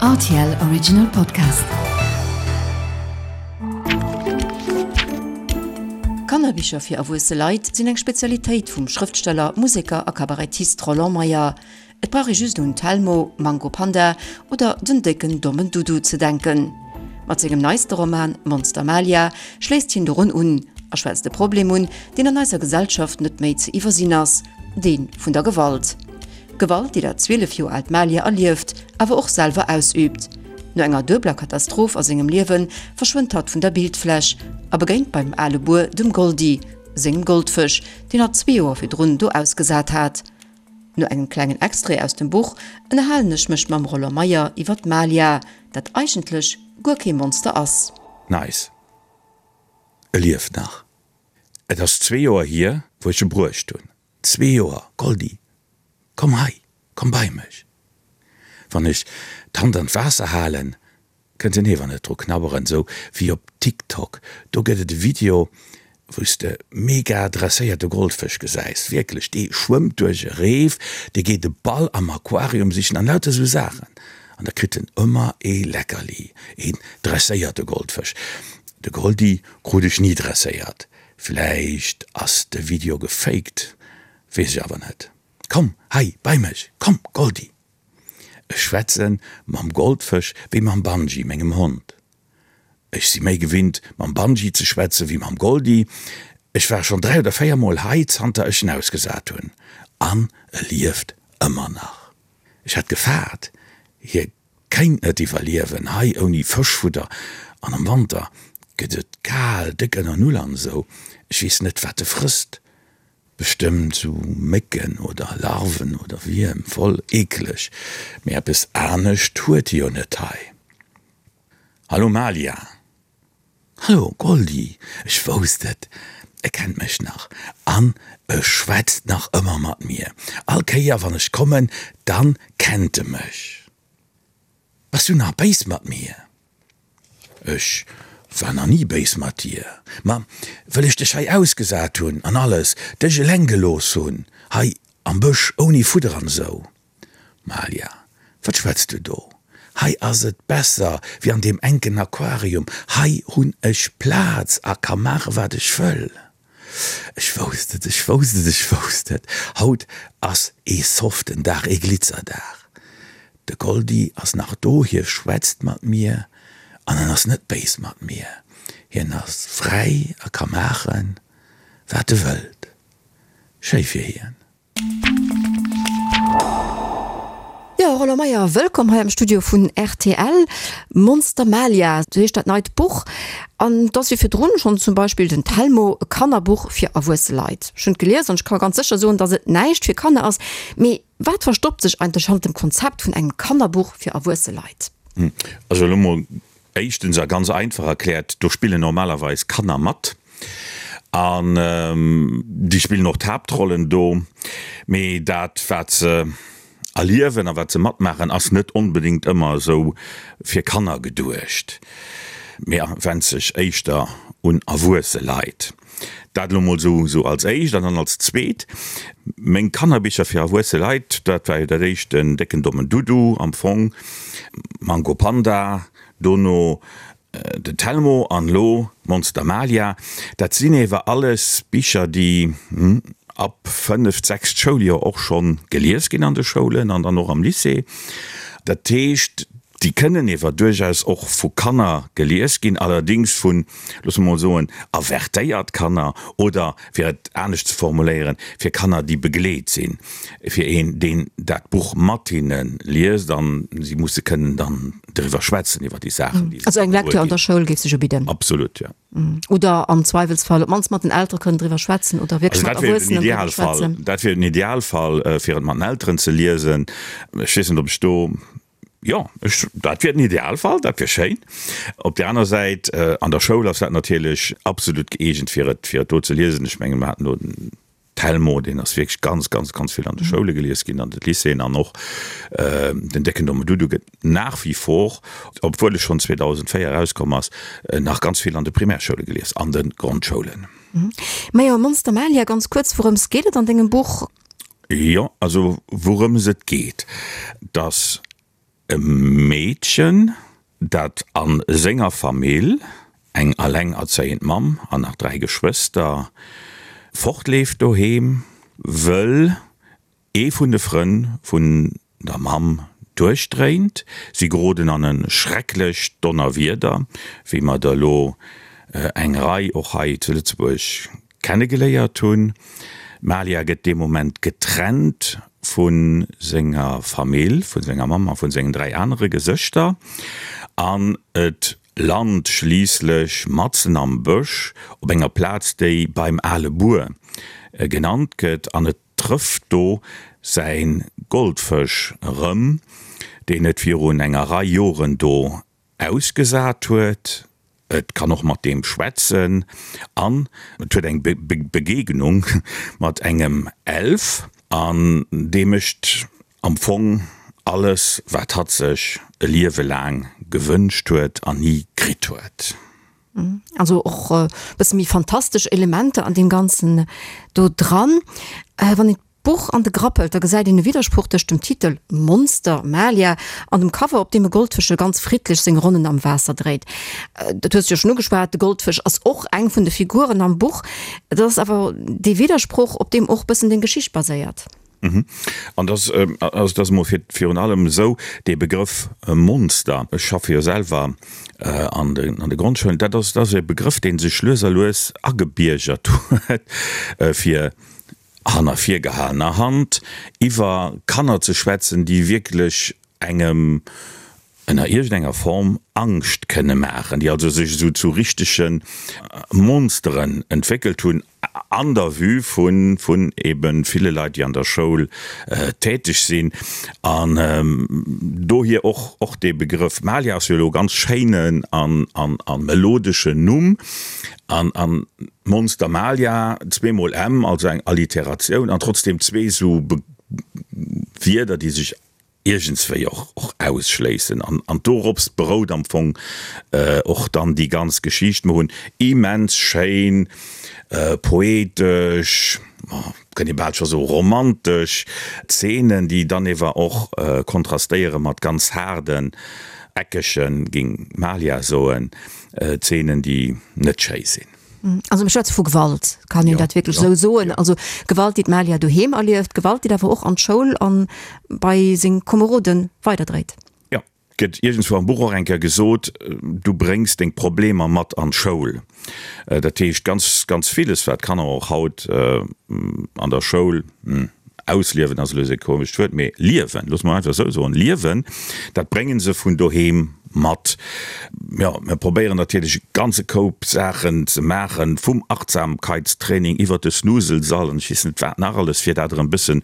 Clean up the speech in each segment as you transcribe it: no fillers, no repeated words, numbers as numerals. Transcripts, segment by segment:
Rtl Original Podcast. Kannerbicher fir erwuesse Leit sinn eng Spezialitéit vum Schrëftsteller, Museker a Kabarettist Roland Meyer. Et brauch ee just un Telmo, Mango Panda oder den décken dommen Dudu ze denken. Mat sengem neiste Roman Monster Malia schléisst hien dorun un a schwätzt e Problem un, deen an eiser Gesellschaft net méi ze iwwersinn ass, dee vun der Gewalt. Gewalt, déi dat 12 Joer aalt Malia erlieft, awer och selwer ausüübt. No enger duebeler Katastroph a sengem Liewe verschwënnt hatt vun der Bildfläch a begéint beim ale Buer dem Goldi sengem Goldfësch, deen hatt zwee Joer virdrun do ausgesat hat. No engem klengen Extrait aus dem Buch ënnerhalen ech mech mam Roland Meyer iwwer d'Malia, dat eigentlech guer kee Monster ass. Nice. E lieft nach. Et ass zwee Joer hier, wou ech e bruecht hunn. Zwee Joer, Goldi, komm hei, komm bei mech. Wann ech d'Hand an d'Waasser halen, kënnt en ewer net dru knabberen, sou wéi op TikTok. Do gëtt et e Video, wou s de mega dresséierte Goldfësch gesäis. Wierklech, dee schwëmmt duerch e Reef, dee geet e Ball am Aquarium sichen an lauter sou Saachen. An da kritt en ëmmer ee Leckerli, een dresséierte Goldfësch. De Goldi krut ech ni dresséiert. Vläicht ass de Video gefaked, weess ech awer net. Komm hei bei mech, komm Goldi! Ech schwätze mam Goldfësch wéi mam Banji, mengem Hond. Ech si méi gewinnt mam Banji ze schwätze wéi mam Goldi. Ech war schonn 3 oder 4 mol hei zanter ech en ausgesat hunn an e lieft ëmmer nach. Ech hat gefaart hie Kéint net iwwerliewen hei ouni Fëschfudder an am Wanter gëtt et kal, déck ënner Null an esou. Ech weess net wat e frësst, bestëmmt sou Mécken oder Larven oder Wierm, voll eekeleg, mee eppes anescht huet e jo net hei. Hallo Malia! Hallo Goldi, ech wousst et, e kennt mech nach an e schwätzt nach ëmmer mat mir. All Kéier wann ech kommen, dann kennt e mech. Bass du nach béis mat mir? Ech war nach ni béis mat dir, ma wëll ech dech hei ausgesat hunn an alles, dech eleng gelooss hunn hei am Bësch ouni Fudder an esou. Malia, wat schwätz du do? Hei ass et besser wéi an deem enken Aquarium. Hei hunn ech Plaz a ka maache wat ech wëll. Ech wousst et, ech wousst et, ech wousst et, haut ass ee soften Dag, ee Glitzerdag. De Goldi ass nach do, hie schwätzt mat mir an en ass net béis mat mir. Hien ass fräi a ka maachen, wat e wëllt. Schéi fir hien. Jo, Roland Meyer, wëllkomm hei am Studio vun rtl. Monster Malia, sou heescht dat neit Buch. An et ass wéi virdrun schonn zum Beispill den Telmo, e Kannerbuch fir erwuesse Leit. Ech hunn et gelies an ech ka ganz sécher soen, datt et näischt fir Kanner ass. Mee wat verstoppt sech eigentlech hannert dem Konzept vun engem Kannerbuch fir erwuesse Leit? Also elo mol Éischtens a ganz einfach erkläert, do spillen normalerweis Kanner mat an déi spillen och d'Haaptrollen do, mee dat wat se erliewen a wat se matmaachen ass net onbedéngt ëmmer esou fir Kanner geduecht, mee wennt sech éischter un erwuesse Leit. Dat elo mol esou als éischt. An dann als zweet, meng Kannerbicher fir erwuesse Leit, dat war jo dat éischt den décken dommen Dudu am Fong, Mango Panda, dono den Telmo an elo Monster Malia. Dat sinn ewer alles Bicher, déi ab fënneft, sechst Schouljoer och schonn gelies ginn an de Schoulen an dann och am Lycée. Dat heescht, déi kënnen ewer duerchaus och vu Kanner gelies ginn, allerdéngs vun, loosse mer mol soen, avertéiert Kanner oder, fir et anescht ze formuléieren, fir Kanner, déi begleet sinn, fir een, deen dat Buch mat hinne liest an si musse kënnen dann driwwer schwätzen, iwwer déi Saachen, déi se Also eng Lecture an der Schoul géif sech ubidden? Absolut, jo. Oder am Zweiwelsfall op d'mannst mat den Eltere kënnen driwwer schwätzen oder wierklech mat Erwuessenen driwwer schwätzen. Dat wier den Idealfall, fir et mat den Elteren ze liesen. Ech weess net, ob ech do, jo, ech, dat wier den Idealfall, dat wier schéin. Op där aner Säit, an der Schoul ass dat natierlech absolut gëeegent, fir et, fir et do ze liesen. Ech mengen, mer haten do den Telmo, deen ass wierklech ganz, ganz, ganz vill an de Schoule gelies ginn, an de Lycéeën an och den Décken Domme Dudu gëtt nach wie vor, obwuel e schonn 2004 erauskomm ass, nach ganz vill an de Primärschoule gelies, an de Grondschoulen. Majo, Monster Malia, ganz kuerz, wourëms geet et an dengem Buch? Jo, also wourëms et geet, dass. e Meedchen, dat a senger Famill, eng allengerzéiend Mamm an nach 3 Geschwëster, fortleeft doheem, wëll ee vun de Frënn vun der Mamm duerchdréint. Si geroden an e schrecklecht Donnerwieder, wéi mer der elo eng Rei och hei zu Lëtzebuerg kennegeléiert hunn. D'Malia gëtt dee Moment getrennt vu senger Famill, vu senger Mamm a vu sengen 3 anere Gesëschter an et lant schliisslech matzen am Bësch op enger Plaz, déi beim ale Buer genannt gëtt an et trëfft do säi Goldfësch erëm, deen et virun enger Rei Joren do ausgesat huet. Et kann och mat deem schwätzen an et huet eng Begegnung mat engem Elf an dee mécht am Fong alles, wat hatt sech e Liewe laang gewënscht huet an ni kritt huet. Also och e bësse méi fantastesch Elementer an deem Ganzen do dran. Wann een d'Buch an de Grapp hëlt, da gesäit een e Widdersproch tëscht dem Titel Monster, Malia an dem Cover, op deem e Goldfëschel ganz friddlech seng Ronnen am Waasser dréit. Dat hues de jo schonn ugeschwat, de Goldfësch ass och eng vun de Figuren am Buch. Dat ass awer dee Widdersproch, op deem och e bëssen deng Geschicht baséiert. An dass, also et ass emol fir virun allem esou, dee Begrëff Monster, ech schaffe jo selwer an de an de Grondschoulen, dat ass, dat ass e Begrëff, dee sech lues a lues agebiergert huet, fir hanner virgehalener Hand iwwer Kanner ze schwätzen, déi wierklech engem ënner iergendenger Form Angscht kënne maachen, déi also sech esou zu richtege Monsteren entwéckelt hunn an der Vue vun vun ebe ville Leit, déi an der Schoul täteg sinn. An dohier och och dee Begrëff. Malia ass jo elo e ganz schéinen an an a melodeschen Numm. An an Monster Malia, zweemol M, also eng Alliteratioun an trotzdem zwee esou Wierder, déi sech iergendswéi och och ausschléissen an an dorops berout am Fong och dann déi ganz Geschicht. Mer hunn immens schéin poetesch, kënnt ee bal scho soe romantesch Zeenen, déi dann ewer och kontrastéiere mat ganz haarden, eckegen, géing d'Malia soen, Zeenen, déi net schéi sinn. Also mir schwätze vu Gewalt, kann een dat wierklech esou soen? Also Gewalt, déi d'Malia doheem erlieft, Gewalt, déi awer och an d'Schoul an bei seng Komerode weiderdréit. Jo, et gëtt iergendswou am Buch och eng Kéier gesot, du bréngs deng Problemer mat an d'Schoul. Dat heescht, ganz, ganz villes, wat d'Kanner och haut an der Schoul ausliewen ass elo e komescht Wuert, mee liewen, loosse mer einfach esou soen, liewen, dat brénge se vun doheem mat. Jo, mir probéieren natierlech e ganze Koup Saachen ze maachen, vum Achtsamkeitstraining iwwert de Snuselsall an ech weess net wat nach alles, fir dat erëm e bëssen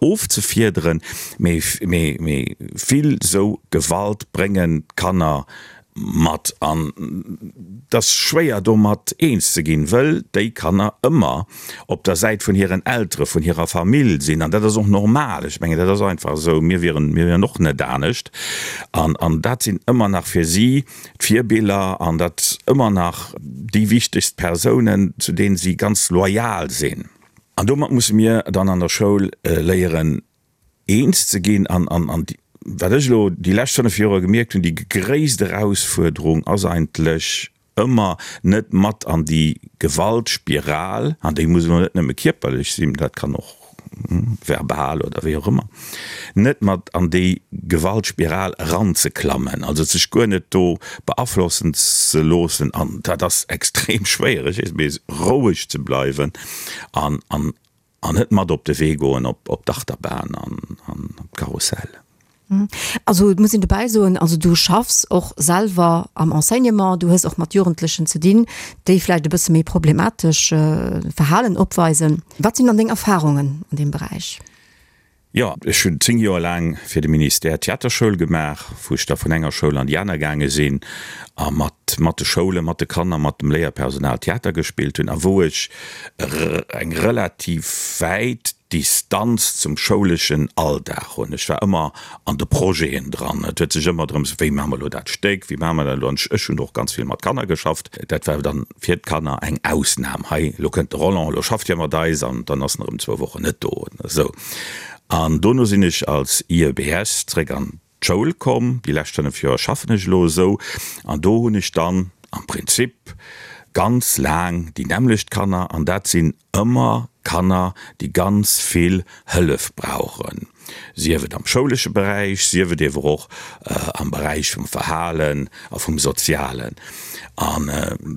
ofzefiederen. Mee, mee, mee vill esou Gewalt bréngen d'Kanner mat an et ass schwéier domat eens ze ginn, wëll déi Kanner ëmmer op der Säit vun hiren Eltere, vun hirer Famill sinn an dat ass och normal. Ech mengen dat ass einfach esou, mir wieren, mir wieren och net anescht an an dat sinn ëmmer nach fir si d'Virbiller an dat ëmmer nach déi wichtegst Persounen, zu deenen si ganz loyal sinn. An domat musse mir dann an der Schoul léieren eens ze ginn an an wat ech elo déi lescht 5 Joer gemierkt hunn, déi gréisst Erausfuerderung ass eigentlech ëmmer net mat an déi Gewaltspiral, an déi muss elo net nëmme kierperlech sinn, dat kann och verbal oder wéi och ëmmer, net mat an déi Gewaltspiral eranzeklammen, also sech guer net do beaflossen ze loossen an dat ass extrem schwéier, ech weess, mee roueg ze bleiwen an an An net mat op de Wee goen op d'Achterbahn an op d'Karussell. Also et muss een dobäi soen, also du schaffs och selwer am Enseignement, du hues och mat Jugendlechen ze dinn, déi vläicht e bësse méi problematesch Verhalen opweisen. Wat sinn dann deng Erfarungen an deem Beräich? Jo, ech hunn 10 Joer laang fir de Ministère Theaterschoul gemaach, wou ech da vun enger Schoul an déi aner gaange sinn a mat mat de Schoulen, mat de Kanner, mat dem Léierpersonal Theater gespillt hunn a wou ech eng relativ wäit Distanz zum schouleschen Alldag hunn. Ech war ëmmer an de Projeten dran. Et huet sech ëmmer drëms, wéi maache mer elo dat Stéck, wéi maache mer dat elo? An ech hunn och ganz vill mat Kanner geschafft. Dat war dann fir d'Kanner eng Ausnam. Hei, elo kënnt de Roland, elo schafft hie mat eis an dann ass en erëm zwou Wochen net do. Esou. An dono sinn ech als IEBS zréck an. d'Schoul komm. Déi lescht 5 Joer schaffen ech elo esou an do hunn ech dann am Prinzip ganz laang déi nämmlecht Kanner an dat sinn ëmmer Kanner, déi ganz vill Hëllef brauchen, sief et am schoulesche Beräich, sief et ewer och am Beräich vum Verhalen a vum Sozialen. An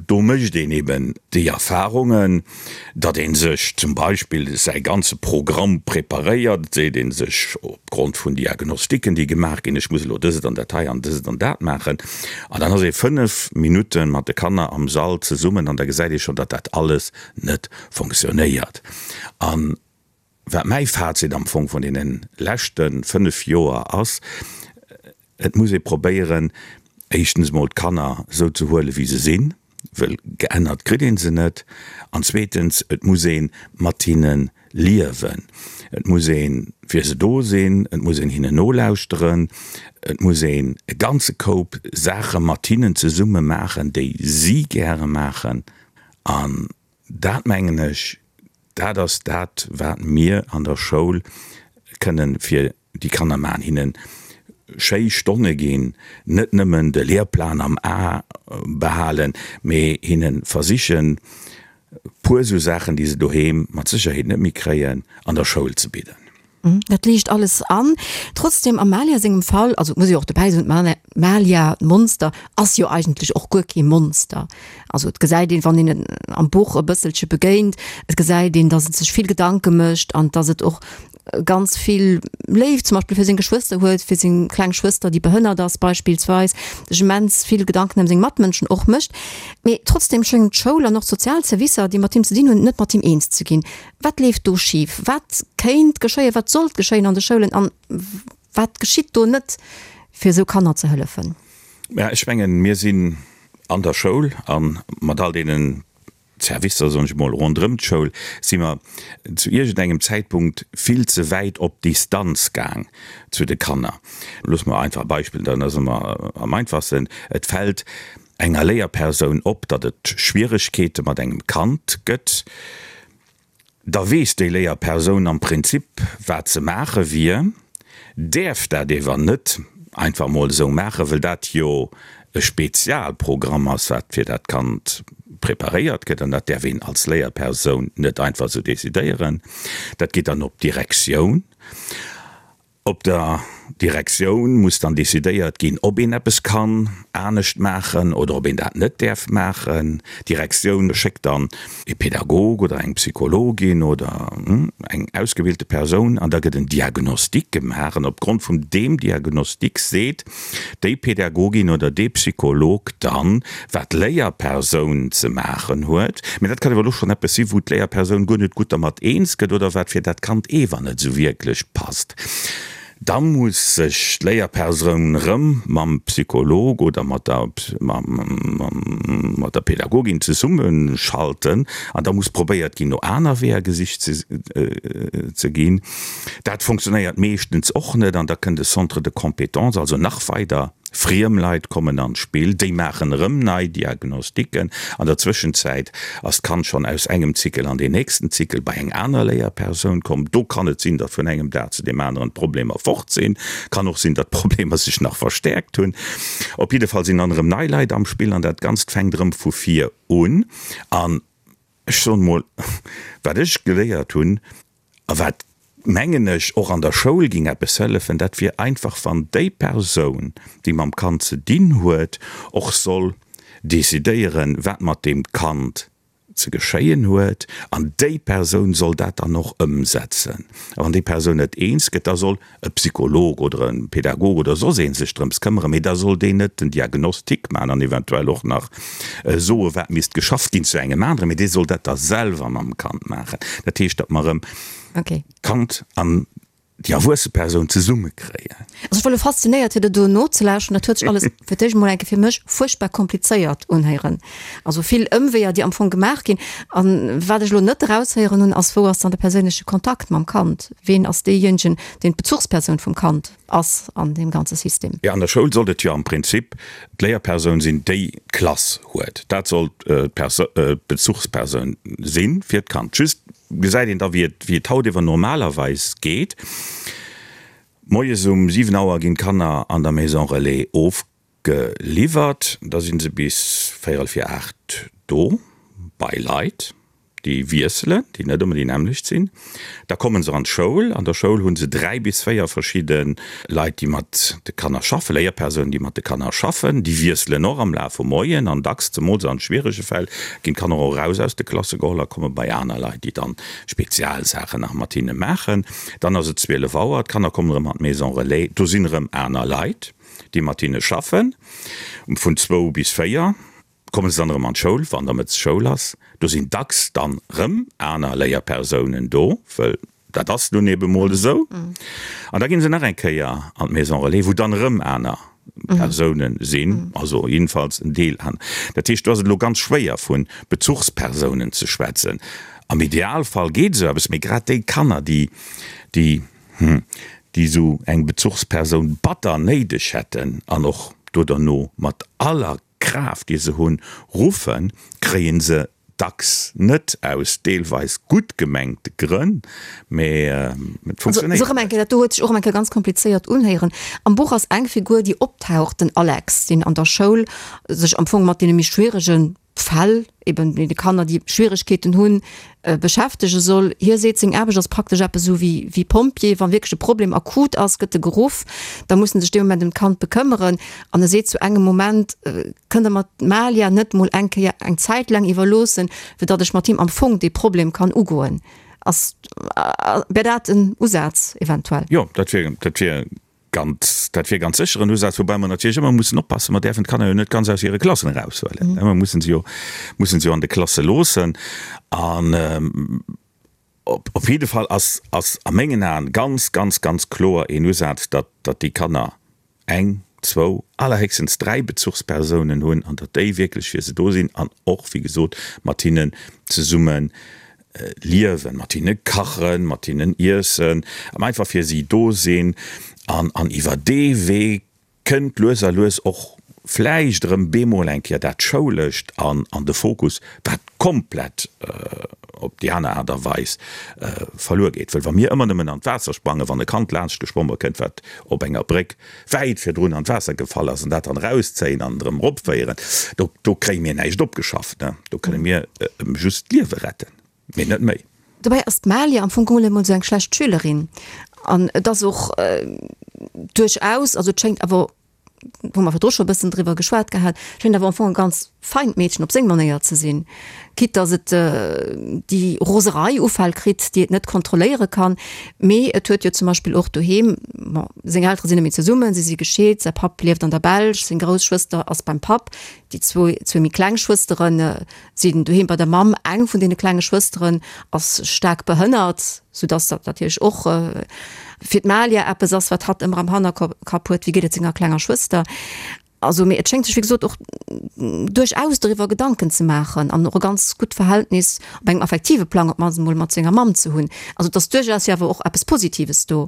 do mécht een eben déi Erfahrungen, datt ee sech zum Beispill säi ganze Programm preparéiert, et seet ee sech opgrond vun Diagnostiken, déi gemaach ginn, ech muss elo dëst an dat hei an dëst an dat maachen. An dann ass ee 5 Minutte mat de Kanner am Sall zesummen an da gesäit ee schonn, datt dat alles net fonctionnéiert. An wat mäi Fazit am Fong vun deene leschte 5 Joer ass, Et muss ee probéieren, éischtens emol d'Kanner esou ze huelen, wéi se sinn, wëll geännert kritt ee se net, an zweetens, et muss ee mat hinne liewen. Et muss ee fir se do sinn, et muss een hinnen nolauschteren, et muss een e ganze Koup Saache mat hinnen zesumme maachen, déi si gäre maachen. An dat, mengen ech, dat ass dat, wat mir an der Schoul kënnen fir déi Kanner maachen, hinne schéi Stonne ginn, net nëmmen de Lehrplan am A behalen, mee hinne versichen, puer esou Saachen, déi se doheem mat Sécherheet net méi kréien, an der Schoul ze bidden. Dat liicht alles an. Trotzdem, am Malia sengem Fall, also et muss ee jo och dobäi soen, d'Malia, d'Monster, ass jo eigentlech och guer kee Monster. Also et gesäit een, wann een et am Buch e bësselche begéint, et gesäit een, datt et sech vill Gedanke mécht an datt et och ganz vill Léift zum Beispill fir seng Geschwëster huet, fir seng kleng Schwëster, déi behënnert ass beispillsweis, sech immens vill Gedanken ëm seng Matmënschen och mécht. Mee trotzdem schéngen d'Schoul an och d'sozial Servicer, déi mat him ze dinn hunn, net mat him eens ze ginn. Wat leeft do schif? Wat kéint geschéien, wat sollt geschéien an de Schoulen an wat geschitt do net, fir esou Kanner ze hëllefen? Mä ech mengen, mir sinn an der Schoul a mat all deenen Servicer, soen ech emol, ronderëm d'Schoul, si mer zu iergendengem Zäitpunkt vill ze wäit op Distanz gaang zu de Kanner. Loosse mer einfach e Beispill, dann ass ëmmer am einfachsten, Et fält enger Léierpersoun op, datt et Schwieregkeete mat engem Kand gëtt, da weess déi Léierpersoun am Prinzip, wat ze maache wier, däerf dat ewer net einfach mol esou maachen, wëll dat jo e Spezialprogramm ass, wat fir dat Kand preparéiert gëtt, an dat däerf een als Léierpersoun net einfach esou decidéieren. Dat geet dann op d'Direktioun. Op der Direktioun muss dann decidéiert ginn, ob een eppes kann anescht maachen oder ob een dat net däerf maachen. D'Direktioun schéckt dann e Pädagog oder eng Psychologin oder eng ausgebildete Persoun an da gëtt en Diagnostic gemaach an opgrond vun deem Diagnostic seet déi Pädagogin oder dee Psycholog dann, wat d'Léierpersoun ze maachen huet. Mä dat kann awer elo schonn eppes sinn, wou d'Léierpersoun guer net gutt dermat eens gëtt oder wat fir dat Kand ewer net esou wierklech passt. Da muss sech d'Léierpersoun erëm mam Psycholog oder mat der, mat der Pädagogin zesummeschalten an da muss probéiert ginn, no aner Weeër gesicht ze ginn. Dat funktionéiert meeschtens och net an da kënnt e Centre de compétences, also nach weider friem Leit kommen an d'Spill, déi maachen erëm nei Diagnostiquen. An der Zwëschenzäit ass d'Kand schonn aus engem Zykel an deen nächsten Zykel bei eng aner Léierpersoun komm. Do kann et sinn, datt vun engem Dag zu deem aneren d'Problemer fort sinn. Kann och sinn, datt d'Problemer sech nach verstäerkt hunn. Op jidde Fall sinn dann erëm nei Leit am Spill an dat Ganzt fänkt erëm vu vir un. An ech soen emol, wat ech geléiert hunn, A wat, mengen ech, och an der Schoul ging eppes hëllefen, dat wier einfach, wann déi Persoun, déi mam Kand ze dinn huet, och soll decidéieren, wat mat deem Kand ze geschéien huet, an déi Persoun soll dat dann och ëmsetzen. A wann déi Persoun net eens gëtt, da soll e Psycholog oder e Pädagog oder soss ee sech drëms këmmeren, mee da soll deen net den Diagnostic maachen an eventuell och nach soe wat misst geschafft ginn zu engem aneren, mee dee soll dat da selwer mam Kand maachen. Dat heescht, datt mer erëm d'Kand an déi erwuesse Persoun zesummekréien. Also ech war elo faszinéiert fir der do nozelauschteren. Dat huet sech alles fir d'éischt emol eng Kéier fir mech fuerchtbar komplizéiert unhéieren. Also vill Ëmweeër, déi am Fong gemaach ginn. An wat ech elo net eraushéieren hunn, ass, wou ass dann de perséinleche Kontakt mam Kand? Ween ass deejéinegen, deen d'Bezuchspersoun vum Kand ass an deem ganze System? Jo, an der Schoul sollt et jo am Prinzip d'Léierpersoun sinn, déi d'Klass huet. Dat sollt d'Bezuchspersoun si fir d'Kand. Just gesäit een da, wéi et haut ewer normalerweis geet. Moies um 7 Auer ginn d'Kanner an der Maison Relais ofgeliwwert. Da si se bis véierel vir 8 do bei Leit, déi wiesselen, déi net ëmmer déi nämmlecht sinn. Da komme se an d'Schoul. An der Schoul hu se 3 bis 4 verschidde Leit, déi mat de Kanner schaffen, Léierpersounen, déi mat de Kanner schaffen. Déi wiesselen och am Laf vum Moien an dacks, zemools an schwierege Fäll, ginn d'Kanner och eraus aus de Klasse geholl a komme bei aner Leit, déi dann Spezialsaachen nach mat hinne maachen. Dann ass et 12 Auer, d'Kanner kommen erëm an d'Maison Relais, do sinn erëm aner Leit, déi mat hinne schaffen. Vun zwou bis 4 komme se dann erëm an d'Schoul, wann da mëttes Schoul ass. Do sinn dacks dann erëm aner Léierpersounen do, wëll dat ass nun ebe mol esou. An da ginn se nach eng Kéier an d'Maison Relais, wou dann erëm aner Persounen sinn, also jiddefalls en Deel an. Dat heescht, do ass et elo ganz schwéier vu Bezuchspersounen ze schwätzen. Am Idealfall geet esou eppes, mee grad déi Kanner, déi, déi, hm, déi esou eng Bezuchspersoun batter néideg hätten an och do derno mat aller Kraaft, déi se hunn, ruffen, kréie se dacks net, aus deelweis gutt gemengte Grënn, mee et funktionéiert Also, erëm eng Kéier, dat do huet sech och erëm eng Kéier ganz komplizéiert unhéieren. Am Buch ass eng Figur, déi optaucht, den Alex, deen an der Schoul sech am Fong mat deene méi schwierege Fäll, eben deene Kanner, déi Schwieregkeeten hunn, beschäftege soll. Hie seet, seng Aarbecht ass praktesch eppes esou wéi wéi Pompjee, wa wierklech e Problem akut ass, gëtt e geruff, da muss en sech dee Moment ëm d'Kand bekëmmeren. An e seet zu engem Moment, Kënnt Der mer d'Malia net mol eng Kéier eng Zäit laang iwwerloossen, fir datt ech mat him am Fong dee Problem kann ugoen? Ass, wär dat en Usaz eventuell? Jo, dat wier, dat wier Ganz, dat wier ganz sécher en Usaz, woubäi mer natierlech ëmmer mussen oppassen, mer däerfen d'Kanner jo net ganz aus hire Klassen eraushuelen. Mer mussen se jo, mussen se jo an de Klasse loossen. An op, op jidde Fall ass, ass a mengen Aen ganz, ganz, ganz kloer een Usaz, datt, datt déi Kanner eng, zwou, allerhéchstens 3 Bezuchspersounen hunn an datt déi wierklech fir se do sinn an och, wéi gesot, mat hinnen zesumme liewen, mat hinne kachen, mat hinnen iessen, an einfach fir si do sinn. An, an iwwer dee Wee kënnt lues a lues och vläicht erëm bemol eng Kéier dat Schoulescht an, an de Fokus, wat komplett op déi aner Aart a Weis verluer geet. Well wa mir ëmmer nëmmen an d'Waasser sprangen, wann e Kand laanscht geschwommen kënnt, wat op enger Bréck wäit virdrun an d'Waasser gefall ass, an dat dann erauszéien an erëm eropféieren, do, do kréie mir näischt opgeschafft, ne? Do kënne mir em just d'Liewe retten, mee net méi. Dobäi ass d'Malia am Fong geholl emol esou eng schlecht Schülerin an et ass och duerchaus, also et schéngt awer, wou mer virdru scho e bëssen driwwer geschwat gehat, schéngt awer am Fong e ganz feint Meedchen op seng Manéier ze sinn, quitte dass et déi Roserei Ufäll kritt, déi et net kontrolléiere kann. Mee et huet jo zum Beispill och doheem, bon, seng Eltere sinn net méi zesummen, si si gescheet, säi Papp lieft an der Belsch, seng grouss Schwëster ass beim Papp, déi zwou zwou méi kleng Schwëstere sinn doheem bei der Mamm. Eng vun deene klenge Schwësteren ass staark behënnert, soudass dat natierlech och fir d'Malia eppes ass, wat hatt ëmmer am Hannerkapp huet, wéi geet et senger klenger Schwëster. Also, mee et schéngt sech wéi gesot och duerchaus doriwwer Gedanken ze maachen an och e ganz gutt Verhältnis op engem affektive Plang op d'mannst emol mat senger Mamm ze hunn. Also et ass duerchaus jo awer och eppes Positives do.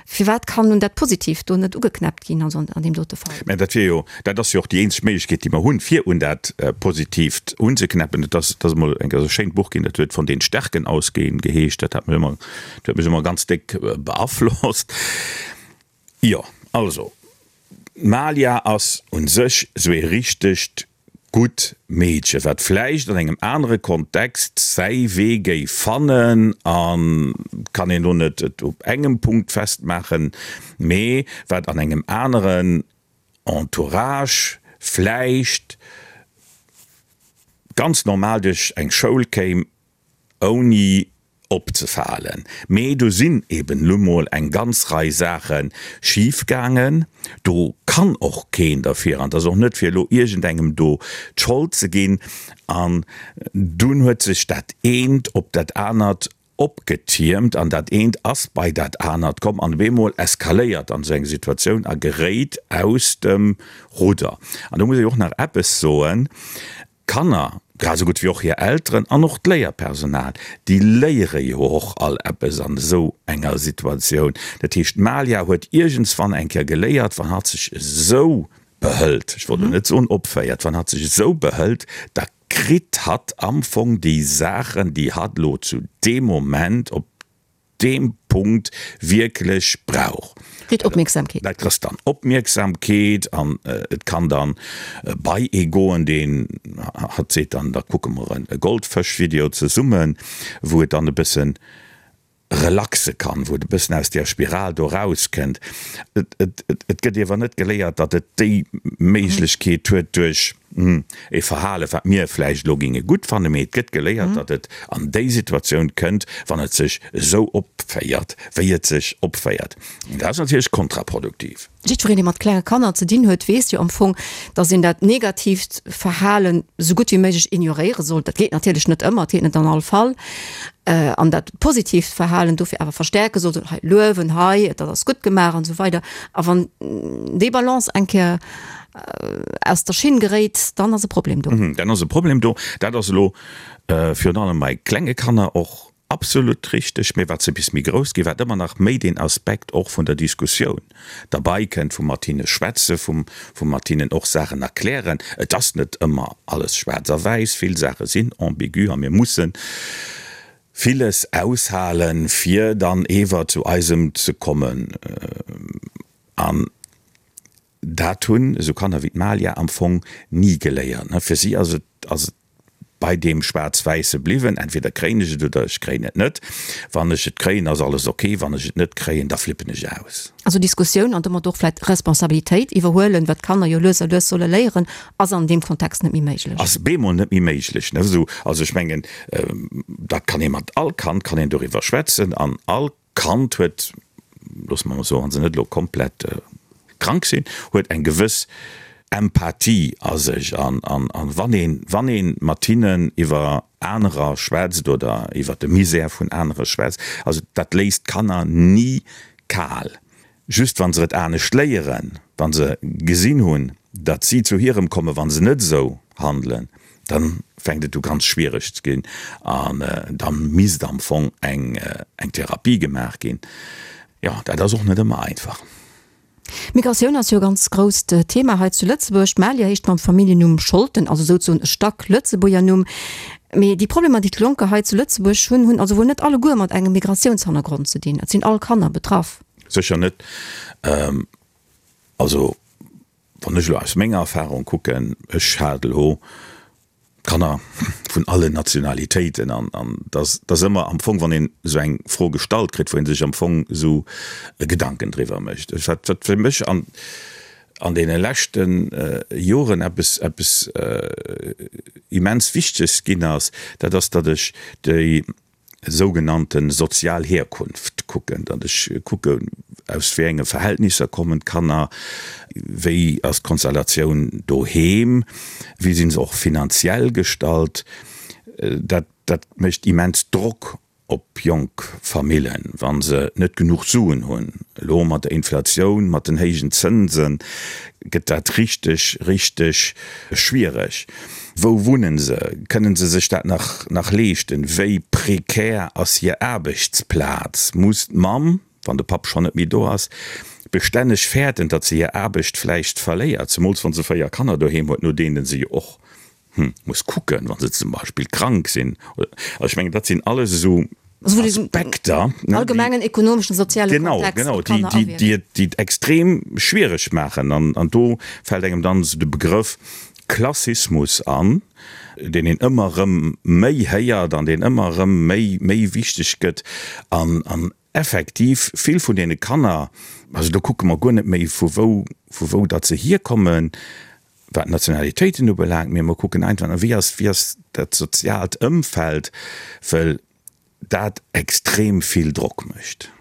Firwat kann nun dat Positiivt do net ugeknäppt ginn, also an deem dote Fall? Mä dat wier jo, dat ass jo och déi eenzeg Méiglechkeet, déi mer hunn, fir un dat Positiivt unzeknäppen. Et ass, et ass emol eng, e schéint Buch ginn, dat huet Von den Stärken ausgehen geheescht. Dat hat mech ëmmer, dat huet mech ëmmer ganz déck beaflosst. Jo, also, d'Malia ass un sech sou ee richtegt gutt Meedche, wat vläicht an engem anere Kontext säi Wee géif fannen, a kann een lo net et op engem Punkt festmaachen, mee wat an engem aneren Entourage vläicht ganz normal duerch eng Schoul kéim, ouni opzefalen. Mee do sinn eben nu mol eng ganz Rei Saache schif gaangen. Do kann och keen derfir, an et ass och net fir elo iergendengem do d'Schold ze ginn. An dunn huet sech dat eent op dat anert opgetiermt an dat eent ass bei dat anert komm an op eemol eskaléiert dann esou eng Situatioun a geréit aus dem Rudder. An do muss ech och nach eppes soen, D'Kanner, grad esou gutt wéi och hir Elteren an och d'Léierpersonal, déi léiere jo och all eppes an esou enger Situatioun. Dat heescht, d'Malia huet iergendswann eng Kéier geléiert, wann hatt sech esou behëlt, ech wollt elo net soen opféiert, wann hatt sech esou behëlt, da kritt hatt am Fong déi Saachen, déi hatt elo zu deem Moment op. deem Punkt wierklech brauch. Kritt Opmierksamkeet. Dat kriss dann Opmierksamkeet an et kann dann bei ee goen, deen hatt seet dann, da kucke mer e Goldfësch-Video zesummen, wou et dann e bëssen relaxe kann, wou et e bëssen aus där Spiral do rauskënnt. Et gëtt iewer net geléiert, datt et déi Méiglechkeet huet duerch e Verhale wat mir vläicht elo géinge gutt fannen, mee et gëtt geléiert, datt et an déi Situatioun kënnt, wann et sech esou opféiert, wéi et sech opféiert. An dat ass natierlech kontraproduktiv. Jiddwereen, dee mat klenge Kanner ze dinn huet, weess jo am Fong, datt een dat negatiivt Verhalen esou gutt wéi méiglech ignoréiere sollt. Dat geet natierlech net ëmmer, et geet net an all Fall. An dat positiivt Verhalen dofir awer verstärke sollt, hei luewen, hei, dat ass gutt gemaach an esou weider. A wann déi Balance eng Kéier aus der Schinn geréit, dann ass e Problem do. Dann ass e Problem do. Dat ass elo virun allem bei klenge Kanner och absolut richteg. Mee wat se bis méi grouss ginn, wat ëmmer nach méi deen Aspekt och vun der Diskussioun derbei kënnt, vum mat hinne schwätze, vum mat hinnen och Saachen erklären. Et ass net ëmmer alles schwaarz a wäiss, vill Saache sinn ambigu a mir mussen villes aushalen, fir dann ewer zu eisem ze kommen. An Dat hunn esou Kanner wéi d'Malia am Fong ni geléiert. Fir si ass et ass et bei deem Schwaarz-Wäisse bliwwen, entweder kréien ech et oder ech kréien et net. Wann ech et kréien, ass alles ok, wann ech et net kréien, da flippen ech aus. Also Diskussioun an domat och vläit Responsabilitéit iwwerhuelen, wat d'Kanner jo lues a lues solle léieren, ass an deem Kontext net méi méiglech. Ass bemol net méi méiglech. Esou, also ech mengen, dat kann ee mat all Kand kann een doriwwer schwätzen an all Kand huet, loosse mer emol soen, wa se net elo komplett krank sinn, huet eng gewëss Empathie a sech. An wann een, wann ee mat hinnen iwwer anerer schwätzt oder iwwer de Misär vun anere schwätzt, also dat léisst d'Kanner ni kal. Just wa se et anescht léieren, wa se gesinn hunn, datt si zu hirem kommen, wa se net esou handelen, da fänkt et u ganz schwiereg ze ginn an da misst am Fong eng Therapie gemaach ginn. Jo, dat ass och net ëmmer einfach. Migratioun ass jo e ganz grousst Thema hei zu Lëtzebuerg. D'Malia heescht mam Familljennumm Scholten, also souzesoen e Stack Lëtzebuerger Numm. Mee déi Problemer, déi d'Jonker hei zu Lëtzebuerg hunn, hunn also wuel net alleguer mat engem Migratiounshannergrond ze dinn. Et sinn all Kanner betraff. Sécher net. Also wann ech elo aus menger Erfahrung kucken, ech hat elo Kanner vun allen Nationalitéiten an dass ass ëmmer am Fong, wann een esou eng Fro gestallt kritt, wou ee sech am Fong esou Gedanken driwwer mécht. Wat fir mech an an deene leschte Joren eppes eppes immens Wichteges ginn ass, dat ass, datt ech déi sougenannte sozial Herkunft kucken, datt ech kucke aus wéi enge Verhältnisser kommen d'Kanner, wéi ass d'Konstellatioun doheem, wéi si se och finanziell gestallt. Dat dat mécht immens Drock op jonk Famillen, wa se net genuch Suen hunn. Elo mat der Inflatioun, mat den héijen Zënse gëtt dat richteg, richteg schwiereg. Wou wunnen se? Kënnen se sech dat nach nach leeschten? Wéi prekär ass hir Aarbechtsplaz? Muss d'Mamm, wann de Papp schonn net méi do ass, bestänneg fäerten, datt se hir Aarbecht vläicht verléiert, zemools wa se 4 Kanner doheem huet, no deene se jo och muss kucken, wa se zum Beispill krank sinn? Also ech mengen, dat sinn alles esou Aspekter, allgemengen ekonomeschen, soziale Kontext, genau, genau, déi, déi, déi et extrem schwiereg maachen. An, an do fält engem dann esou de Begrëff Klassismus an, deen een ëmmer erëm méi héiert an deen ëmmer erëm méi, méi wichteg gëtt. An, an effektiv vill vun deene Kanner, also do kucke mer guer net méi vu wou, vu wou datt se hierkommen, wat d'Nationalitéiten ubelaangt, mee mer kucken einfach, wéi ass, wéi ass dat soziaalt Ëmfeld, well dat extrem vill Drock mécht.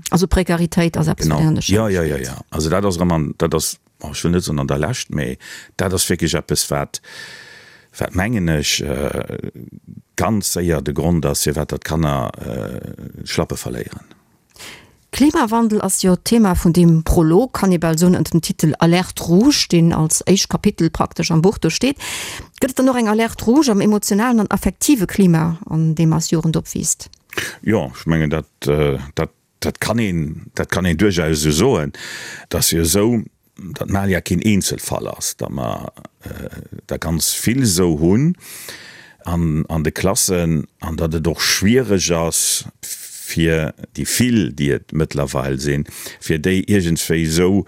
Also Prekaritéit ass eppes, wat een an de Schäin steet. Jo, jo, jo. Also dat ass erëm an, dat ass, ech wëll net soen an der Lescht, mee dat ass wierklech eppes, wat, wat mengen ech, ganz séier de Grond ass, firwat datt d'Kanner d'Schlappe verléieren. Klimawandel ass jo d'Thema vun deem Prolog, kann ee bal soen, ënner dem Titel Alerte rouge, deen als éischt Kapitel praktesch am Buch do steet. Gëtt et dann och eng Alerte rouge am emotionalen an affektive Klima, an deem eis Jugend opwiisst? Jo, ech mengen, dat, dat, dat kann een, dat kann een duerchaus esou soen. Et ass jo esou, datt Malia keen Eenzelfall ass, datt mer der ganz vill esou hunn an an de Klassen an datt et och schwiereg ass. fir déi vill, déi et mëttlerweil sinn, fir déi iergendswéi esou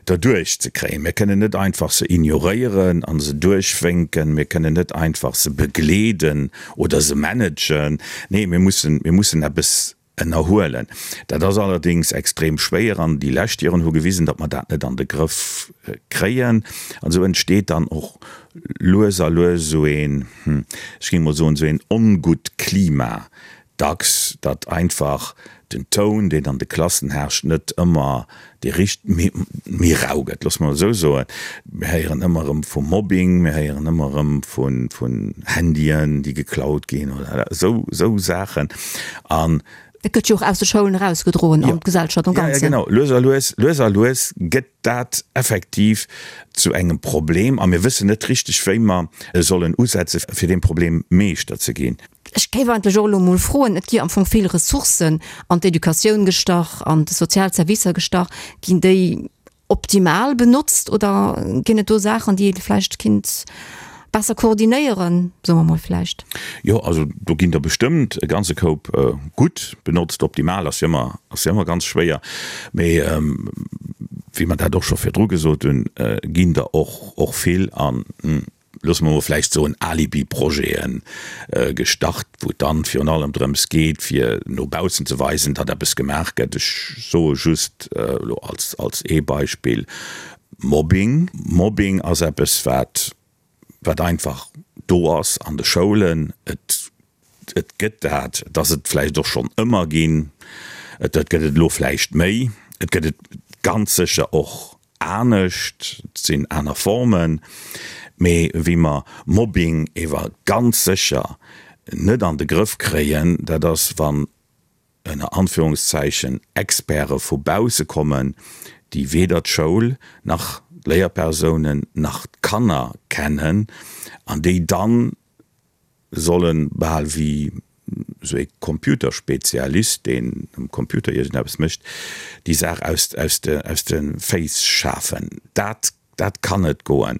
derduerch ze kréien. Mir kënnen net einfach se ignoréieren a se duerchwénken, mir kënnen net einfach se begleeden oder se managen. Nee, mir mussen, mir mussen eppes ënnerhuelen. Dat ass allerdéngs extrem schwéier an déi lescht Joren hu gewisen, datt mer dat net an de Grëff kréien. An esou entsteet dann och lues a lues esou een, ech géing mol soen, esou een ongutt Klima dacks, datt einfach den Toun, deen an de Klassen herrscht, net ëmmer dee richt, méi, méi rau gëtt, loosse mer et esou soen. Mir héieren ëmmer erëm vu Mobbing, mir héieren ëmmer erëm vu, vun Handyen, déi geklaut ginn oder esou, esou Saachen. An. Dat gëtt jo och aus de Schoulen erausgedroen an d'Gesellschaft am Ganzen. Jo, jo, genau. Lues a lues, lues a lues gëtt dat effektiv zu engem Problem a mir wëssen net richteg, wéi mer sollen usetze fir deem Problem Meeschter ze ginn. Ech géif eigentlech och elo emol froen, et gi am Fong vill Ressourcen an d'Educatioun gestach, an d'sozial Servicer gestach. Ginn déi optimal benotzt oder ginn et do Saachen, déi ee vläicht kinnt besser koordinéieren, soe mer mol vläicht? Jo, also do ginn der bestëmmt e ganze Koup gutt benotzt. Optimal ass jo ëmmer, ass jo ëmmer ganz schwéier, mee wéi mer dat och scho virdru gesot hunn, ginn der och, och vill an, loosse mer mol vläicht soen, Alibi-Projete gestart, wou et dann virun allem drëms geet, fir no baussen ze weisen, datt eppes gemaach gëtt. Ech soe just elo als, als ee Beispill Mobbing. Mobbing ass eppes, wat, wat einfach do ass an de Schoulen. Et, et gëtt dat, et ass et vläicht och schonn ëmmer ginn, et gëtt et elo vläicht méi, et gëtt et ganz sécher och anescht, et sinn aner Formen, mee wéi mer Mobbing ewer ganz sécher net an de Grëff kréien, dat ass, wann ënner Anführungszeichen Experte vu bausse kommen, déi weder d'Schoul nach d'Léierpersounen nach d'Kanner kennen an déi dann sollen bal wéi sou ee Computerspezialist, deen um Computer iergendeppes mécht, déi Saach aus, aus de, aus de Féiss schafen. Dat, dat kann net goen.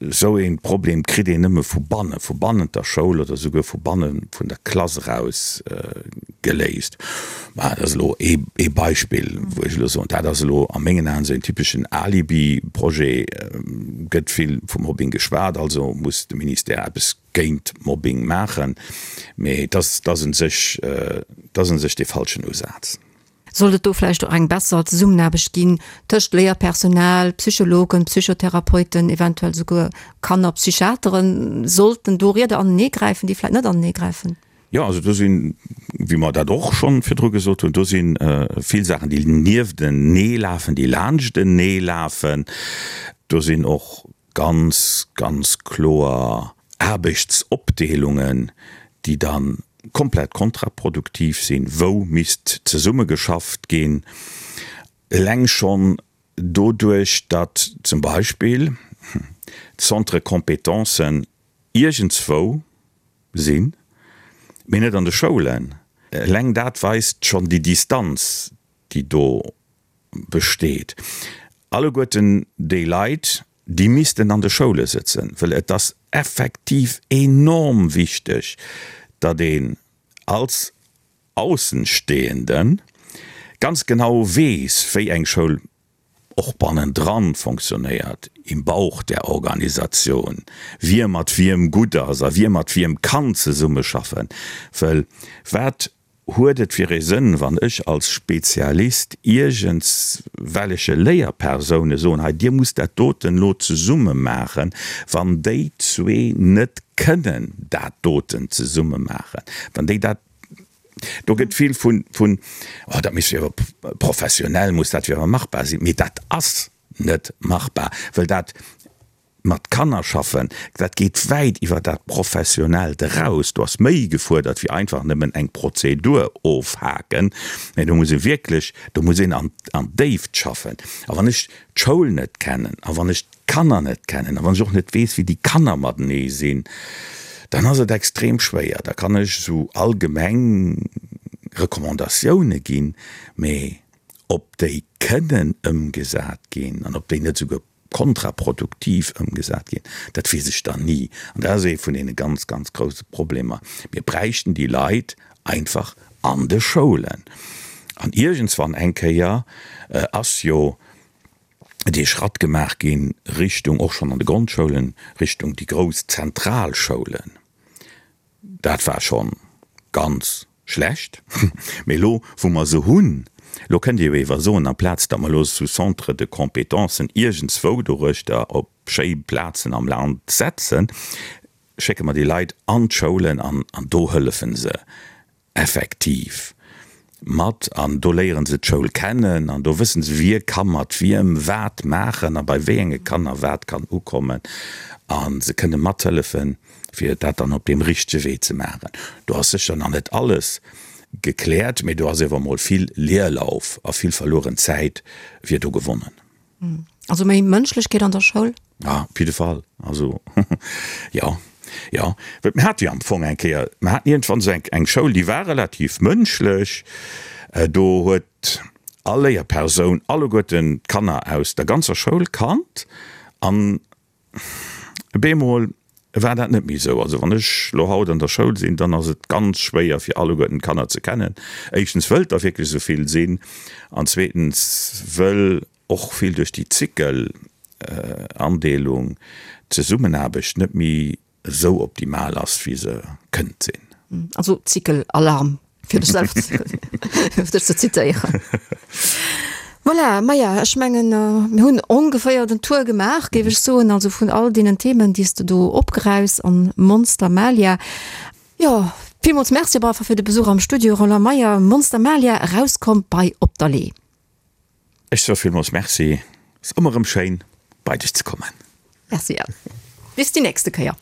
Sou ee Problem kritt een nëmme vu bannen, vu bannent der Schoul oder souguer vu banne vun der Klass eraus geléist. Mä dat ass elo ee, ee Beispill, wou ech elo soen, dat ass elo a mengen Aen esou een typeschen Alibi-Projet. Gëtt vill vu Mobbing geschwat, also muss de Ministère eppes géint Mobbing maachen. Mee et ass, et ass un sech, et ass un sech dee falschen Usaz. Sollt et do vläicht och eng besser Zesummenaarbecht ginn tëscht Léierpersonal, Psychologen, Psychotherapeuten, eventuell souguer Kannerpsychiateren? Sollten do Rieder anenee gräifen, déi vläicht net anenee gräifen? Jo, also do sinn, wéi mer dat och schonn virdru gesot hunn, do si vill Saachen, déi nieftenee lafen, déi laanschtenee lafen. Do sinn och ganz, ganz kloer Aarbechtsopdeelungen, déi da komplett kontraproduktiv sinn, wou misst zesummegeschafft ginn. Eleng schonn doduerch, datt zum Beispill d'Centres compétences iergendswou sinn, mee net an de Schoulen. Eleng dat weist schonn déi Distanz, déi do besteet. Alleguerten déi Leit, déi missten an de Schoule sëtzen, well et ass effektiv enorm wichteg, datt een als Aussenstehenden ganz genau weess, wéi eng Schoul och bannendran fonctionnéiert, im Bauch der Organisation, wie mat wiem gutt ass a wie mat wiem kann zesummeschaffen. Well wat huet et fir ee Sënn, wann ech als Spezialist iergendswelleche Léierpersoune soen, hei dir musst dat doten elo zesumme maachen, wann déi zwee net kënnen dat doten zesumme maachen, wann déi dat Do gëtt vill vun, vun, oh dat misst jo awer professionell muss dat jo awer machbar sinn. Mee dat ass net machbar, well dat mat Kanner schaffen, dat geet wäit iwwer dat Professionellt eraus. Do ass méi gefuerdert wéi einfach nëmmen eng Prozedur ofhaken. Mee do muss ee wierklech, do muss een an, an d'Déift schaffen. A wann ech d'Schoul net kennen a wann ech d'Kanner net kennen a wann ech och net weess, wéi déi Kanner matenee sinn, dann ass et extrem schwéier. Da kann ech esou allgemeng Recommandatioune ginn, mee ob déi kënnen ëmgesat ginn an ob déi net esouguer kontraproduktiv ëmgesat ginn, dat weess ech dann ni. An dat ass ee vun deene ganz, ganz grousse Problemer. Mir bräichten déi Leit einfach. an de Schoulen. An iergendswann eng Kéier ass jo dee Schratt gemaach ginn Richtung, och schonn an de Grondschoulen, Richtung déi grouss Zentralschoulen. Dat war scho ganz schlecht. Mee elo, wou mer se hunn, elo kënnt Dir jo ewer soen, amplaz datt mer elo esou Centres de compétences iergendswou doruechter op schéi Plazen am Land setzen, schécke mer déi Leit an d'Schoulen an do hëllefe se effektiv mat an do léieren se d'Schoul kennen an do wëssen se, wie ka mat wiem wat maachen a bei wéi enge Kanner wat kann ukommen a se kënne mathëllefen, fir dat dann op deem richtege Wee ze maachen. Do ass sécher nach net alles gekläert, mee do ass ewer emol vill Leerlauf a vill verlueren Zäit wier do gewonnen. Also méi Mënschlechkeet an der Schoul? Ja, op jidde Fall. Also, jo, jo. Well mir hate jo am Fong eng Kéier, mir haten iergendwann esou eng, eng Schoul, déi war relativ mënschlech. Do huet all Léierpersoun alleguerten d'Kanner aus der ganzer Schoul kannt an Bemol war dat net méi esou. Also wann ech lo haut an der Schoul sinn, dann ass et ganz schwéier fir alleguerten d'Kanner ze kennen. Éischtens wëll et der wierklech esou vill sinn an zweetens wëll och vill duerch déi Zykelandeelung d'Zesummenaarbecht net méi esou optimal ass wéi se kënnt sinn. Also Zykelalarm. Fir dech selwer ze, fir dech ze zitéieren. Voilà, maja, ech mengen, mir hunn ongeféier den Tour gemaach, géif ech soen, also vun all deenen Themen, déi s de do opgeräus an Monster Malia. Jo, villmools Merci op alle Fall fir de Besuch am Studio, Roland Meyer. Monster Malia, erauskomm bei Op der Lee. Ech soe villmools Merci, ass ëmmer erëm schéin bei dech ze kommen. Merci, bis déi nächste Kéier.